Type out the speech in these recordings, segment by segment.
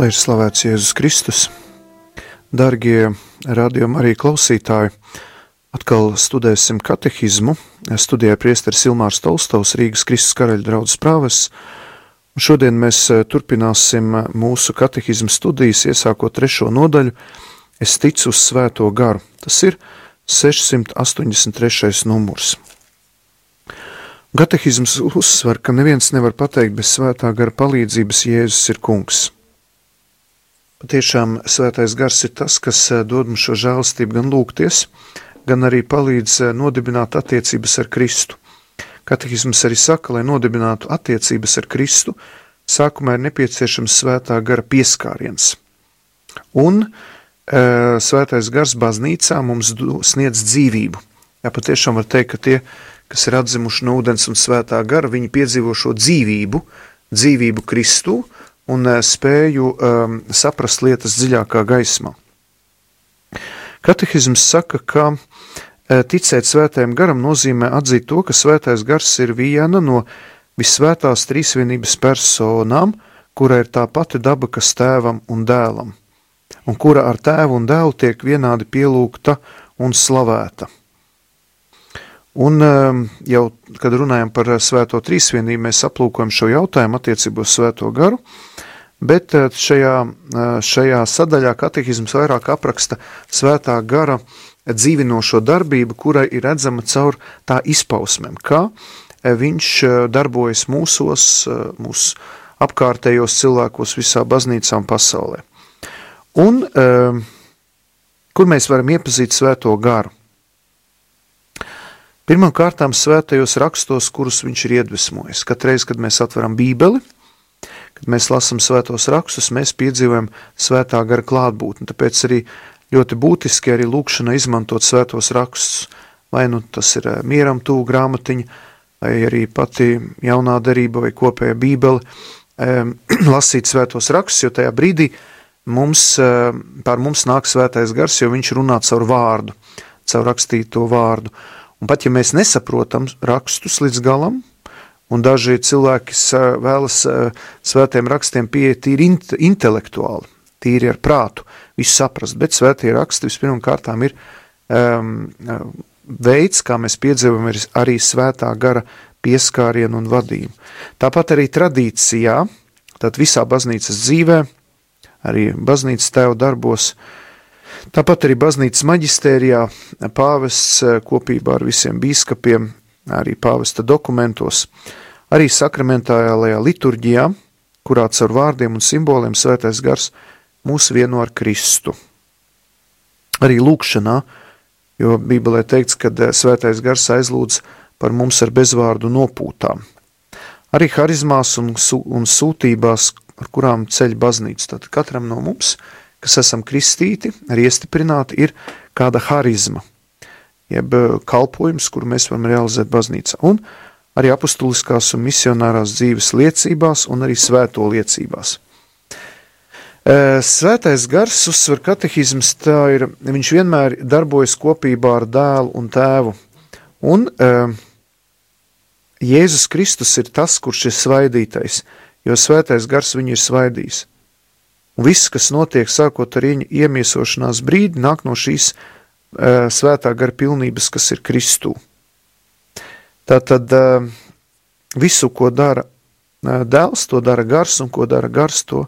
Lai ir slavēts Jēzus Kristus, dargie radījuma arī klausītāji, atkal studēsim katehizmu. Studijā priesteris Ilmārs Tolstovs, Rīgas Kristus Karaļa draudzes prāvests. Šodien mēs turpināsim mūsu katehizmu studijas, iesākot 3. nodaļu Es ticu uz Svēto garu. Tas ir 683. numurs. Katehizms uzsver, ka neviens nevar pateikt bez Svētā gara palīdzības Jēzus ir kungs. Patiešām Svētais gars ir tas, kas dod mums šo žēlastību gan lūgties, gan arī palīdz nodibināt attiecības ar Kristu. Katehizms arī saka, lai nodibinātu attiecības ar Kristu, sākumā ir nepieciešams Svētā gara pieskāriens. Un Svētais gars baznīcā mums sniedz dzīvību. Jā, patiešām var teikt, ka tie, kas ir atzimuši no ūdens un Svētā gara, viņi piedzīvo šo dzīvību Kristū un spēju saprast lietas dziļākā gaismā. Katehizms saka, ka ticēt Svētajam garam nozīmē atzīt to, ka Svētais gars ir viena no visvētās trīsvienības personām, kura ir tā pati daba, kas tēvam un dēlam, un kura ar tēvu un dēlu tiek vienādi pielūgta un slavēta. Un jau, kad runājam par Svēto trīsvienību, mēs aplūkojam šo jautājumu attiecībā uz Svēto garu, bet šajā sadaļā katehizms vairāk apraksta Svētā gara dzīvinošo darbību, kurai ir redzama caur tā izpausmēm, kā viņš darbojas mūsos, mūsu apkārtējos cilvēkos visā baznīcā un pasaulē. Un kur mēs varam iepazīt Svēto garu? Pirmām kārtām svētajos rakstos, kurus viņš ir iedvesmojis. Katreiz, kad mēs atveram Bībeli, kad mēs lasam svētos rakstus, mēs piedzīvojam Svētā gara klātbūtni. Tāpēc arī ļoti būtiski arī lūkšana izmantot svētos rakstus. Vai nu tas ir mieram tuvu grāmatiņa, vai arī pati jaunā derība vai kopēja Bībele, lasīt svētos rakstus, jo tajā brīdī pār mums nāk Svētais gars, jo viņš runā caur vārdu, caur rakstīto vārdu. Un pat ja mēs nesaprotam rakstus līdz galam, un daži cilvēki vēlas svētiem rakstiem pieiet tīri intelektuāli, tīri ar prātu, visu saprast, bet svētie raksti vispirmām kārtām ir veids, kā mēs piedzīvojam arī Svētā gara pieskārienu un vadību. Tāpat arī tradīcijā, tad visā baznīcas dzīvē, arī baznīcas tēva darbos, tāpat arī baznīcas maģistērijā, pāvests kopībā ar visiem bīskapiem, arī pāvesta dokumentos, arī sakramentālajā liturģijā, kurā caur vārdiem un simboliem Svētais gars mūs vieno ar Kristu. Arī lūkšanā, jo Bībelē teikts, ka Svētais gars aizlūdz par mums ar bezvārdu nopūtām. Arī harizmās un sūtībās, ar kurām ceļ baznīca. Tad katram no mums, kas esam kristīti, arī iestiprināti, ir kāda harizma, jeb kalpojums, kuru mēs varam realizēt baznīcā. Un arī apustuliskās un misionārās dzīves liecībās un arī svēto liecībās. Svētais gars, uzsver katehizms, viņš vienmēr darbojas kopībā ar dēlu un tēvu. Un Jēzus Kristus ir tas, kurš ir svaidītais, jo Svētais gars viņu ir svaidījis. Un viss, kas notiek sākot ar viņa iemiesošanās brīdi, nāk no šīs Svētā gara pilnības, kas ir Kristū. Tātad visu, ko dara dēls, to dara gars, un ko dara gars, to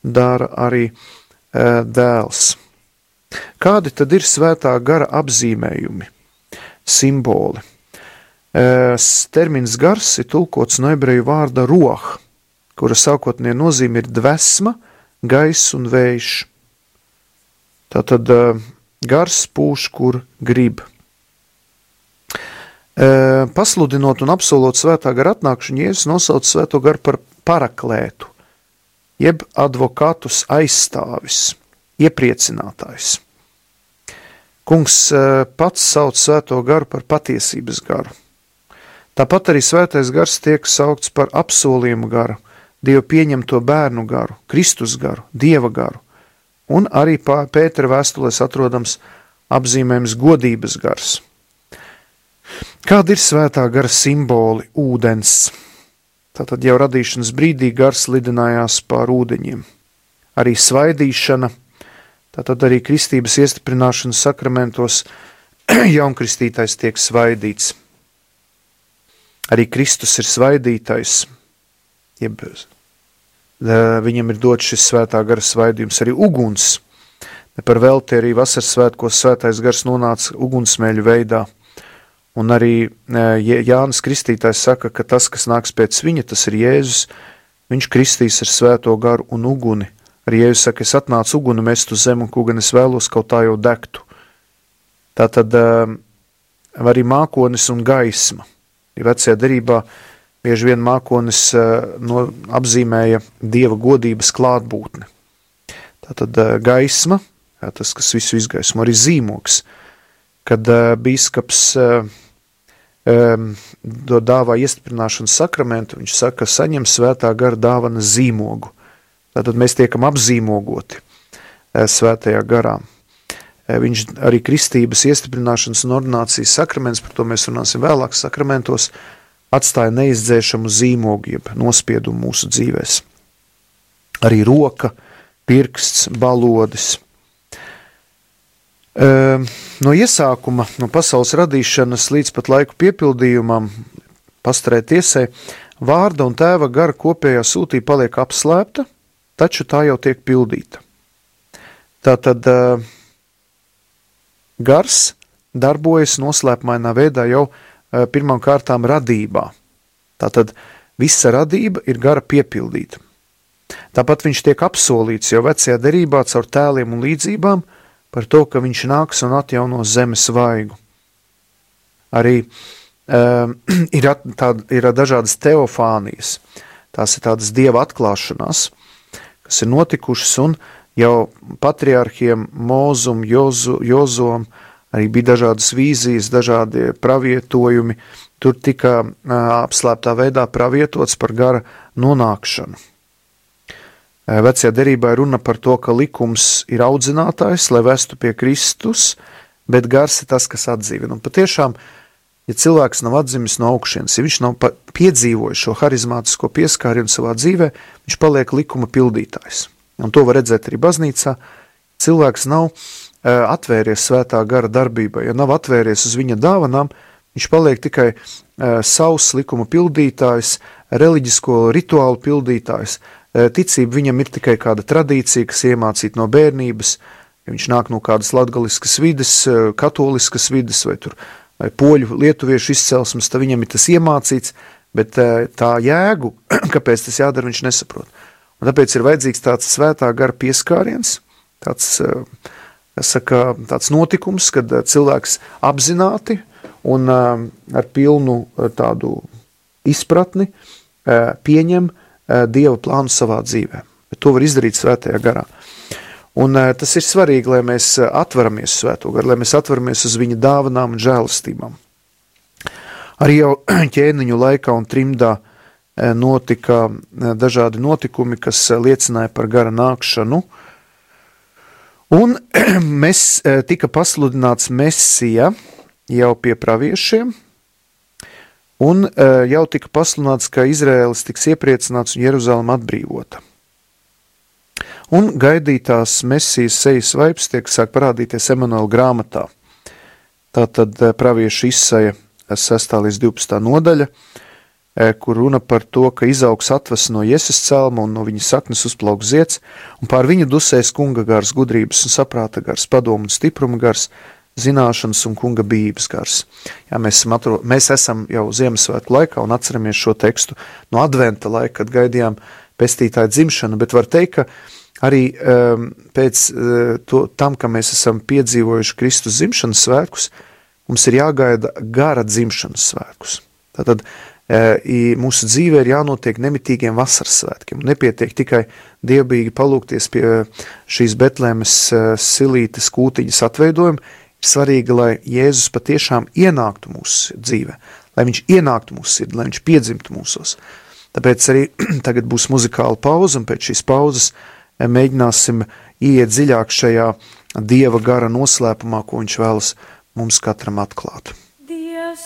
dara arī dēls. Kādi tad ir Svētā gara apzīmējumi, simboli? Termins gars ir tulkots no ebreju vārda roh, kura sākotnējā nozīme ir dvesma, gaiss un vējš. Tātad gars pūš, kur grib. Pasludinot un apsolot Svētā gara atnākšanu, Jēzus nosauc Svēto garu par paraklētu, jeb advokātus aizstāvis, iepriecinātājs. Kungs pats sauc Svēto garu par patiesības garu. Tāpat arī Svētais gars tiek saukts par apsolījumu garu, Dieva pieņemto bērnu garu, Kristus garu, Dieva garu, un arī Pētera vēstulēs atrodams apzīmējums godības gars. Kāda ir Svētā gara simboli? Ūdens. Tātad jau radīšanas brīdī gars lidinājās pār ūdeņiem. arī svaidīšana, tātad arī kristības iestiprināšanas sakramentos jaunkristītais tiek svaidīts. Arī Kristus ir svaidītais, jeb viņam ir dots šis svētā gara svaidījums, arī uguns. Par velti arī vasaras svētkos svētais gars nonāca ugunsmēļu veidā. Un arī Jānis Kristītājs saka, ka tas, kas nāks pēc viņa, tas ir Jēzus, viņš kristīs ar svēto garu un uguni. Arī Jēzus saka, es atnācu uguni mest uz zemi, un ko gan es vēlos, kaut tā jau degtu. Tātad arī mākonis un gaisma. Vecajā derībā bieži vien mākonis apzīmēja Dieva godības klātbūtni. Tātad gaisma, tas, kas visu izgaismo, arī zīmogs, kad bīskaps dāvā iestiprināšanas sakramentu, viņš saka, saņem svētā gara dāvana zīmogu. Tātad mēs tiekam apzīmogoti svētajā garā. Viņš arī kristības iestiprināšanas un ordinācijas sakraments, par to mēs runāsim vēlāk sakramentos, atstāja neizdzēšamu zīmogu, jeb nospiedumu mūsu dzīvēs. Arī roka, pirksts, balodis. No iesākuma, no pasaules radīšanas līdz pat laiku piepildījumam, pastarē tiesai, vārda un tēva gara kopējā sūtī paliek apslēpta, taču tā jau tiek pildīta. Tātad gars darbojas noslēpmainā veidā jau pirmām kārtām radībā. Tātad visa radība ir gara piepildīta. Tāpat viņš tiek apsolīts jau vecajā derībā caur tēliem un līdzībām par to, ka viņš nāks un atjaunos zemes vaigu. Arī ir dažādas teofānijas, tās ir tādas dieva atklāšanās, kas ir notikušas, un jau patriarhiem Mozum, Jozom arī bija dažādas vīzijas, dažādi pravietojumi, tur tika apslēptā veidā pravietots par gara nonākšanu. Vecajā derībā ir runa par to, ka likums ir audzinātājs, lai vestu pie Kristus, bet gars ir tas, kas atdzīvina. Un patiešām, ja cilvēks nav atdzimis no augšienes, ja viņš nav piedzīvojis šo harizmātisko pieskārienu savā dzīvē, viņš paliek likuma pildītājs. Un to var redzēt arī baznīcā. Cilvēks nav atvēries svētā gara darbībai, ja nav atvēries uz viņa dāvanām, viņš paliek tikai savs likuma pildītājs, reliģisko rituālu pildītājs. Ticība viņam ir tikai kāda tradīcija, kas iemācīta no bērnības, ja viņš nāk no kādas latgaliskas vides, katoliskas vides vai poļu lietuviešu izcelsmes, tad viņam ir tas iemācīts, bet tā jēgu, kāpēc tas jādara, viņš nesaprot. Un tāpēc ir vajadzīgs tāds svētā gara pieskāriens, tāds notikums, kad cilvēks apzināti un ar pilnu tādu izpratni pieņem Dieva plānu savā dzīvē. Bet to var izdarīt svētajā garā. Un tas ir svarīgi, lai mēs atveramies svēto garu, lai mēs atveramies uz viņa dāvanām un žēlastībām. Arī jau ķēniņu laikā un trimdā notika dažādi notikumi, kas liecināja par gara nākšanu. Un tika pasludināts Mesija jau pie praviešiem, un jau tika pasludināts, ka Izraēlis tiks iepriecināts un Jeruzalema atbrīvota. Un gaidītās Mesijas sejas vaips sāk parādīties Emanuela grāmatā. Tātad pravieša Isaja 6. līdz 12. nodaļa, kur runa par to, ka izaugs atvas no Jesas celma un no viņa saknes uzplauks zieds, un pār viņu dusēs kunga gars, gudrības un saprāta gars, padomu un stipruma gars, zināšanas un kunga bijības gars. Jā, mēs esam jau Ziemassvētku laikā un atceramies šo tekstu no adventa laika, kad gaidījām pestītāju dzimšanu, bet var teikt, ka arī pēc tam, ka mēs esam piedzīvojuši Kristus dzimšanas svētkus, mums ir jāgaida gara dzimšanas svētkus. Tātad mūsu dzīvē ir jānotiek nemitīgiem vasaras svētkiem. Nepietiek tikai dievbijīgi palūgties pie šīs Betlēmes silītes kūtiņas atveidojuma. Ir svarīgi, lai Jēzus patiešām ienāktu mūsu dzīvē, lai viņš ienāktu mūsu sirdī, lai viņš piedzimtu mūsos. Tāpēc arī tagad būs muzikāla pauze, un pēc šīs pauzes mēģināsim ieiet dziļāk šajā Dieva gara noslēpumā, ko viņš vēlas mums katram atklāt. Dios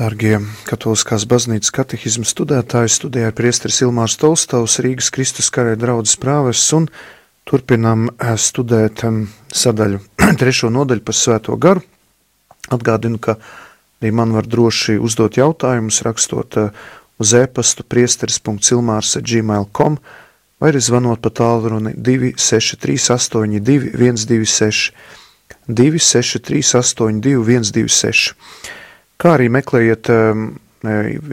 Dargie Katoliskās baznīcas katehismu studētāji, studijā ir priesteris Ilmārs Tolstovs, Rīgas Kristus Karaļa draudzes prāvests, un turpinām studēt sadaļu, 3. nodaļu par Svēto garu. Atgādinu, ka arī man var droši uzdot jautājumus, rakstot uz e-pastu priesteris.ilmārs@gmail.com vai arī zvanot pa tālruni 263 82 126, 263 82 126. Kā arī meklējiet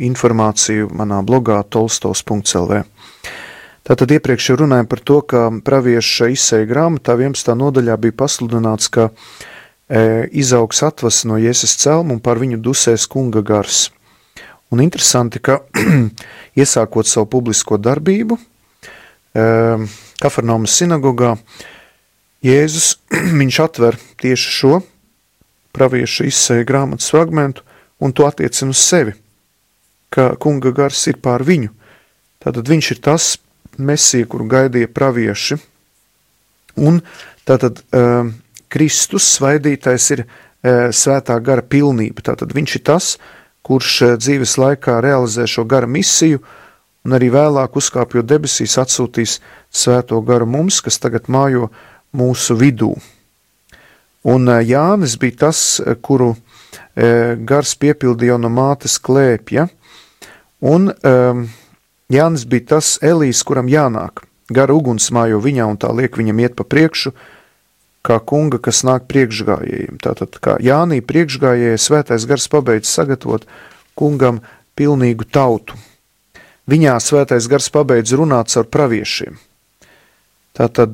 informāciju manā blogā tolstovs.lv. Tātad iepriekš jau runājam par to, ka pravieša Isaija grāmatā 11. nodaļā bija pasludināts, ka izaugs atvas no Jēzus celma un par viņu dusēs kunga gars. Un interesanti, ka iesākot savu publisko darbību Kafarnaumas sinagogā, Jēzus viņš atver tieši šo pravieša Isaija grāmatas fragmentu un to attiecina uz sevi, ka kunga gars ir pār viņu. Tātad viņš ir tas Mesija, kuru gaidīja pravieši, un tātad Kristus svaidītais ir svētā gara pilnība. Tātad viņš ir tas, kurš dzīves laikā realizē šo gara misiju, un arī vēlāk uzkāpjot debesīs atsūtīs svēto garu mums, kas tagad mājo mūsu vidū. Un Jānis bija tas, kuru gars piepildīja no mātes klēpja, un Jānis bija tas Elijas, kuram jānāk. Gara uguns mājo viņā, un tā liek viņam iet pa priekšu, kā kunga, kas nāk priekšgājējiem. Tātad, kā Jānī priekšgājēja, svētais gars pabeidz sagatavot kungam pilnīgu tautu. Viņā svētais gars pabeidz runāt caur praviešiem. Tātad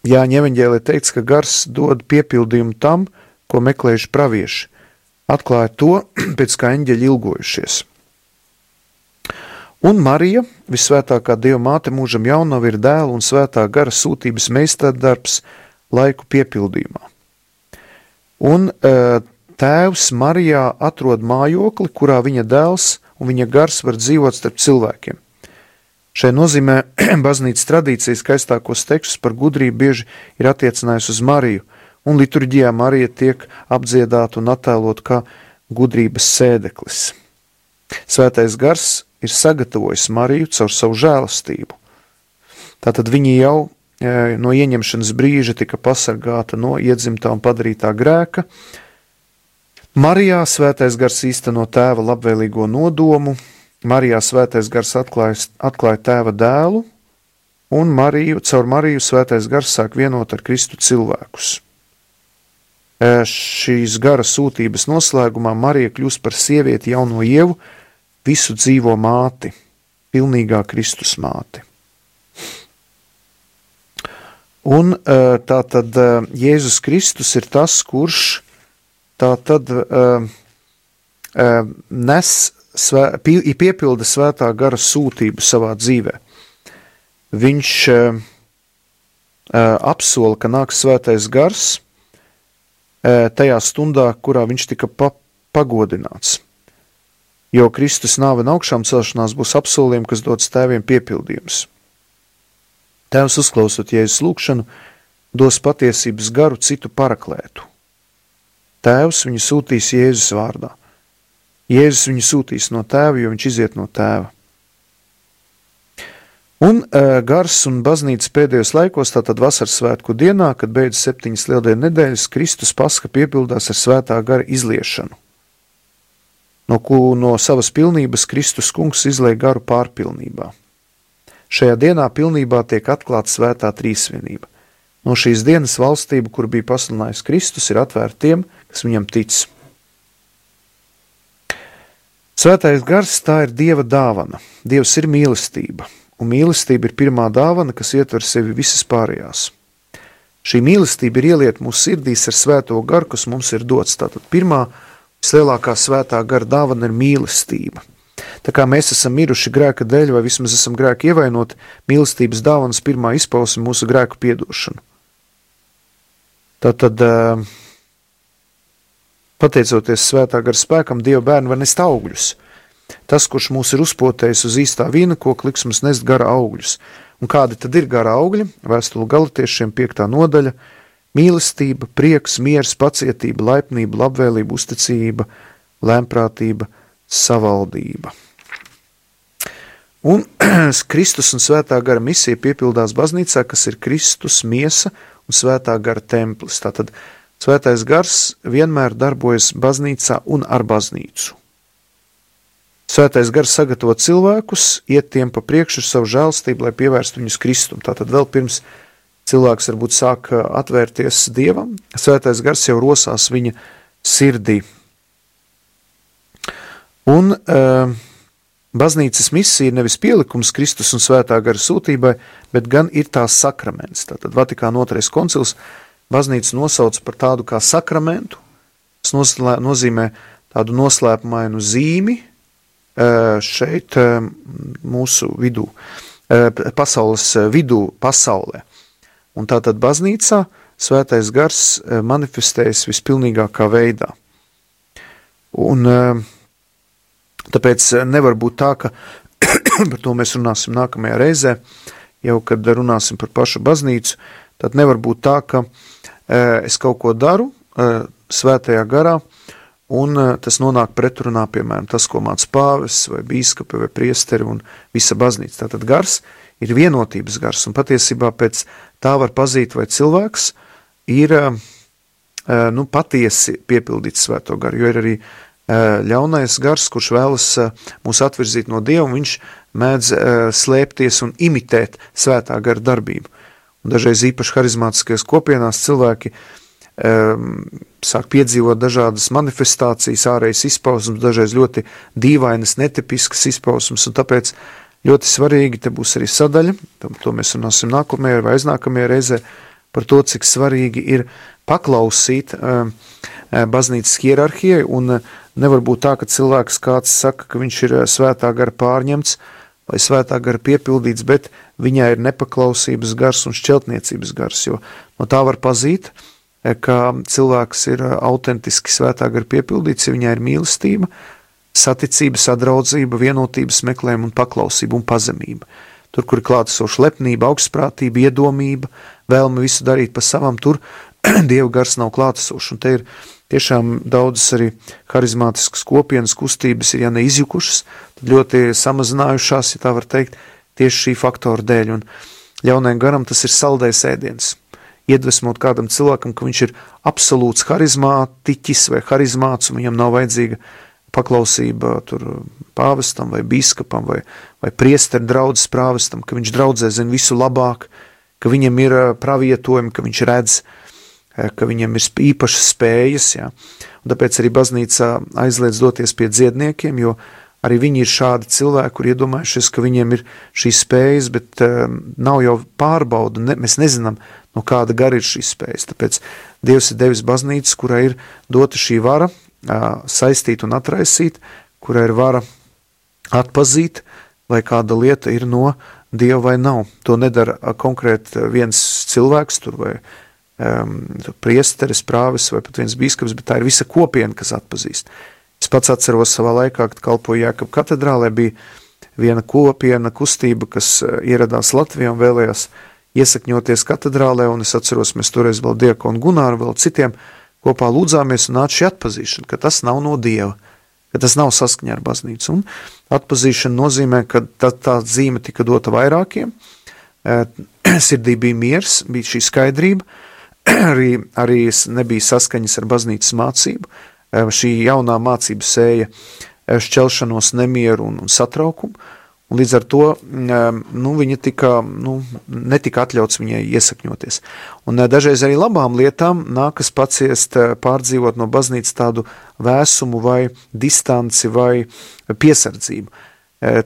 Jāņa evaņģēlē teikts, ka gars dod piepildījumu tam, ko meklējuši pravieši, atklāja to, pēc kā eņģeļi ilgojušies. Un Marija, visvētākā Dieva māte mūžam jaunava, ir dēla un svētā gara sūtības meistardarbs laiku piepildījumā. Un tēvs Marijā atrod mājokli, kurā viņa dēls un viņa gars var dzīvot starp cilvēkiem. Šai nozīmē baznīcas tradīcijas skaistākos tekstus par gudrību bieži ir attiecinājusi uz Mariju, un liturģijā Marija tiek apdziedāta un attēlot kā gudrības sēdeklis. Svētais gars ir sagatavojis Mariju caur savu žēlastību. Tātad viņa jau no ieņemšanas brīža tika pasargāta no iedzimtā un padarītā grēka. Marijā svētais gars īsteno tēva labvēlīgo nodomu, Marijā svētais gars atklāja tēva dēlu, un caur Mariju svētais gars sāk vienot ar Kristu cilvēkus. Šīs gara sūtības noslēgumā Marija kļūst par sievieti jauno ievu, visu dzīvo māti, pilnīgā Kristus māti. Un tātad Jēzus Kristus ir tas, kurš tātad piepilda svētā gara sūtību savā dzīvē. Viņš apsola, ka nāks svētais gars tajā stundā, kurā viņš tika pagodināts. Jo Kristus nāve un augšām celšanās būs apsolījumi, kas dots tēviem piepildījums. Tēvs, uzklausot Jēzus lūgšanu, dos patiesības garu citu paraklētu. Tēvs viņu sūtīs Jēzus vārdā. Jēzus viņu sūtīs no tēva, jo viņš iziet no tēva. Un gars un baznīcas pēdējos laikos, tātad vasaras svētku dienā, kad beidz 7 lieldienu nedēļas, Kristus Paska piepildās ar svētā gara izliešanu. No savas pilnības Kristus kungs izlej garu pārpilnībā. Šajā dienā pilnībā tiek atklāta svētā trīsvienība. No šīs dienas valstība, kur bija pasludinājis Kristus, ir atvērta tiem, kas viņam tic. Svētais gars, tā ir Dieva dāvana. Dievs ir mīlestība, un mīlestība ir pirmā dāvana, kas ietver sevi visas pārējās. Šī mīlestība ir ielieta mūsu sirdīs ar svēto garu, kas mums ir dots. Tātad pirmā, vislielākā svētā gara dāvana ir mīlestība. Tā kā mēs esam miruši grēka dēļ, vai vismaz esam grēku ievainoti, mīlestības dāvanas pirmā izpausme mūsu grēku piedošanu. Tātad, pateicoties svētā gara spēkam, Dieva bērni var nest augļus. Tas, kurš mūs ir uzpotējis uz īstā vīna koka, liks mums nest gara augļus. Un kādi tad ir gara augļi? Vēstule Galatiešiem 5. nodaļa, mīlestība, prieks, miers, pacietība, laipnība, labvēlība, uzticība, lēmprātība, savaldība. Un Kristus un svētā gara misija piepildās baznīcā, kas ir Kristus miesa un svētā gara templis. Tātad svētais gars vienmēr darbojas baznīcā un ar baznīcu. Svētais gars sagatavo cilvēkus, iet tiem pa priekšu ar savu žēlstību, lai pievērstu viņus Kristum. Tātad vēl pirms cilvēks varbūt sāk atvērties Dievam, svētais gars jau rosās viņa sirdī. Un baznīcas misija ir nevis pielikums Kristus un svētā gara sūtībai, bet gan ir tās sakraments. Tātad Vatikāna 2. koncils baznīcu nosauc par tādu kā sakramentu. Tas nozīmē tādu noslēpumainu zīmi šeit mūsu vidū, pasaules vidū, pasaulē. Un tātad baznīcā svētais gars manifestējas vispilnīgākā veidā. Un tāpēc nevar būt tā, ka par to mēs runāsim nākamajā reizē, jau kad runāsim par pašu baznīcu, tad nevar būt tā, ka es kaut ko daru svētajā garā, un tas nonāk pretrunā, piemēram, tas, ko māc pāvests vai bīskapi vai priesteri un visa baznīca. Tātad gars ir vienotības gars, un patiesībā pēc tā var pazīt, vai cilvēks ir patiesi piepildīts svēto garu, jo ir arī ļaunais gars, kurš vēlas mūs atvirzīt no Dieva, un viņš mēdz slēpties un imitēt svētā gara darbību. Un dažreiz īpaši harizmātiskajās kopienās cilvēki sāk piedzīvot dažādas manifestācijas, ārējas izpausmes, dažreiz ļoti dīvainas, netipiskas izpausmes, un tāpēc ļoti svarīgi, te būs arī sadaļa, to mēs runāsim nākamajā vai aiznākamajā reizē, par to, cik svarīgi ir paklausīt baznīcas hierarhijai, un nevar būt tā, ka cilvēks kāds saka, ka viņš ir svētā gara pārņemts vai svētā gara piepildīts, bet viņā ir nepaklausības gars un šķeltniecības gars, jo no tā var pazīt, ka cilvēks ir autentiski svētā gara piepildīts, ja viņā ir mīlestība, saticība, sadraudzība, vienotības meklējuma un paklausība un pazemība. Tur, kur ir klātesoša lepnība, augstprātība, iedomība, vēlme visu darīt pa savam, tur Dieva gars nav klātesošs. Un te ir tiešām daudzas arī harizmātiskas kopienas kustības, ir ja neizjukušas, tad ļoti samazinājušās, ja tā var teikt, tieši šī faktora dēļ. Un ļaunajam garam tas ir saldējs ēdiens. Iedvesmot kādam cilvēkam, ka viņš ir absolūts harizmātiķis vai harizmāts, un viņam nav vajadzīga paklausība tur pāvestam vai bīskapam vai priesteru draudzes prāvestam, ka viņš draudzē zina visu labāk, ka viņam ir pravietojumi, ka viņš redz, ka viņam ir īpašas spējas, ja. Un tāpēc arī baznīca aizliedz doties pie dziedniekiem, jo arī viņi ir šādi cilvēki, kur iedomājušies, ka viņiem ir šīs spējas, bet nav jau pārbauda, mēs nezinām, no kāda gara ir šīs spējas. Tāpēc Dievs ir devis baznīcas, kurai ir dota šī vara saistīt un atraisīt, kurai ir vara atpazīt, vai kāda lieta ir no Dieva vai nav. To nedara konkrēti viens cilvēks, tur vai priesteris, prāvis vai pat viens bīskaps, bet tā ir visa kopiena, kas atpazīst. Es pats atceros savā laikā, kad kalpoju Jēkaba katedrālē, bija viena kopiena kustība, kas ieradās Latvijā un vēlējās iesakņoties katedrālē, un es atceros, mēs toreiz vēl diakonu Gunāru, vēl citiem kopā lūdzāmies un nāca šī atpazīšana, ka tas nav no Dieva, ka tas nav saskaņā ar baznīcu. Un atpazīšana nozīmē, ka tā zīme tika dota vairākiem, sirdī bija miers, bija šī skaidrība, arī nebija saskaņas ar baznīcas mācību. Šī jaunā mācība sēja šķelšanos, nemieru un satraukumu, un līdz ar to viņa netika atļauts viņai iesakņoties. Un dažreiz arī labām lietām nākas paciest, pārdzīvot no baznīcas tādu vēsumu vai distanci vai piesardzību.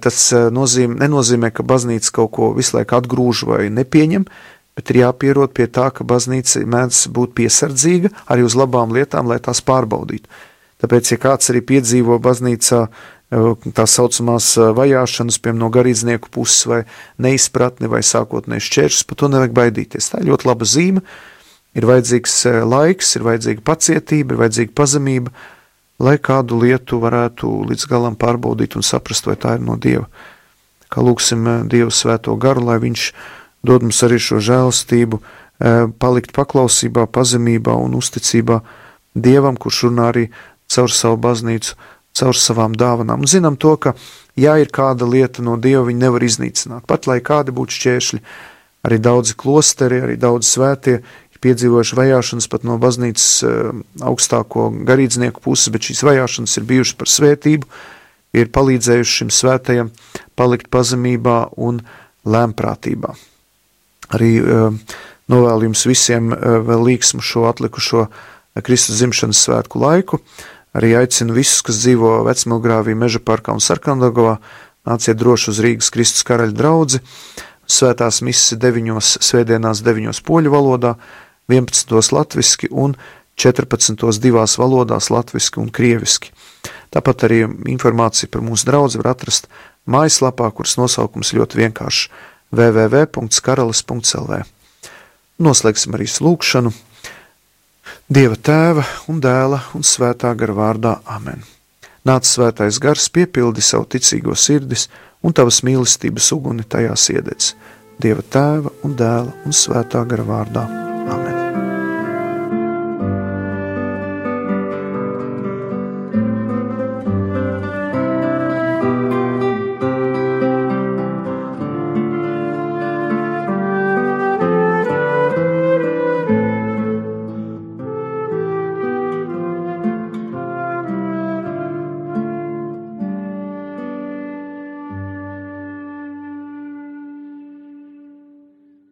Tas nenozīmē, ka baznīca kaut ko visu laiku atgrūž vai nepieņem, bet ir jāpierod pie tā, ka baznīca mēdz būt piesardzīga arī uz labām lietām, lai tās pārbaudītu. Tāpēc, ja kāds arī piedzīvo baznīcā tā saucamās vajāšanas, piemēram, no garīdznieku puses vai neizpratni vai sākotnēji šķēršus, par to nevajag baidīties. Tā ir ļoti laba zīme, ir vajadzīgs laiks, ir vajadzīga pacietība, ir vajadzīga pazemība, lai kādu lietu varētu līdz galam pārbaudīt un saprast, vai tā ir no Dieva. Kā lūksim Dievu svēto garu, lai viņš dod mums arī šo žēlastību palikt paklausībā, pazemībā un uzticībā Dievam, kurš runā arī caur savu baznīcu, caur savām dāvanām. Un zinām to, ka ja ir kāda lieta no Dieva, viņi nevar iznīcināt. Pat lai kādi būtu šķēršļi, arī daudzi klosteri, arī daudzi svētie ir piedzīvojuši vajāšanas pat no baznīcas augstāko garīdznieku puses, bet šīs vajāšanas ir bijušas par svētību, ir palīdzējuši šim svētajam palikt pazemībā un lēmprātībā. Arī novēlu jums visiem vēl līksmu šo atlikušo Kristus dzimšanas svētku laiku. Arī aicinu visus, kas dzīvo Vecmilgrāvī, Meža parkā un Sarkandagavā, nāciet droši uz Rīgas Kristus karaļa draudzi. Svētās mises 9 svētdienās 9 poļu valodā, 11 latviski un 14 divās valodās latviski un krieviski. Tāpat arī informācija par mūsu draudzi var atrast mājaslapā, kuras nosaukums ļoti vienkāršs www.karalis.lv. Noslēgsim arī lūgšanu. Dieva Tēva un Dēla un Svētā gara vārdā. Amen. Nāc Svētais Gars, piepildi savu ticīgo sirdis un tavas mīlestības uguni tajās iededz. Dieva Tēva un Dēla un Svētā gara vārdā. Amen.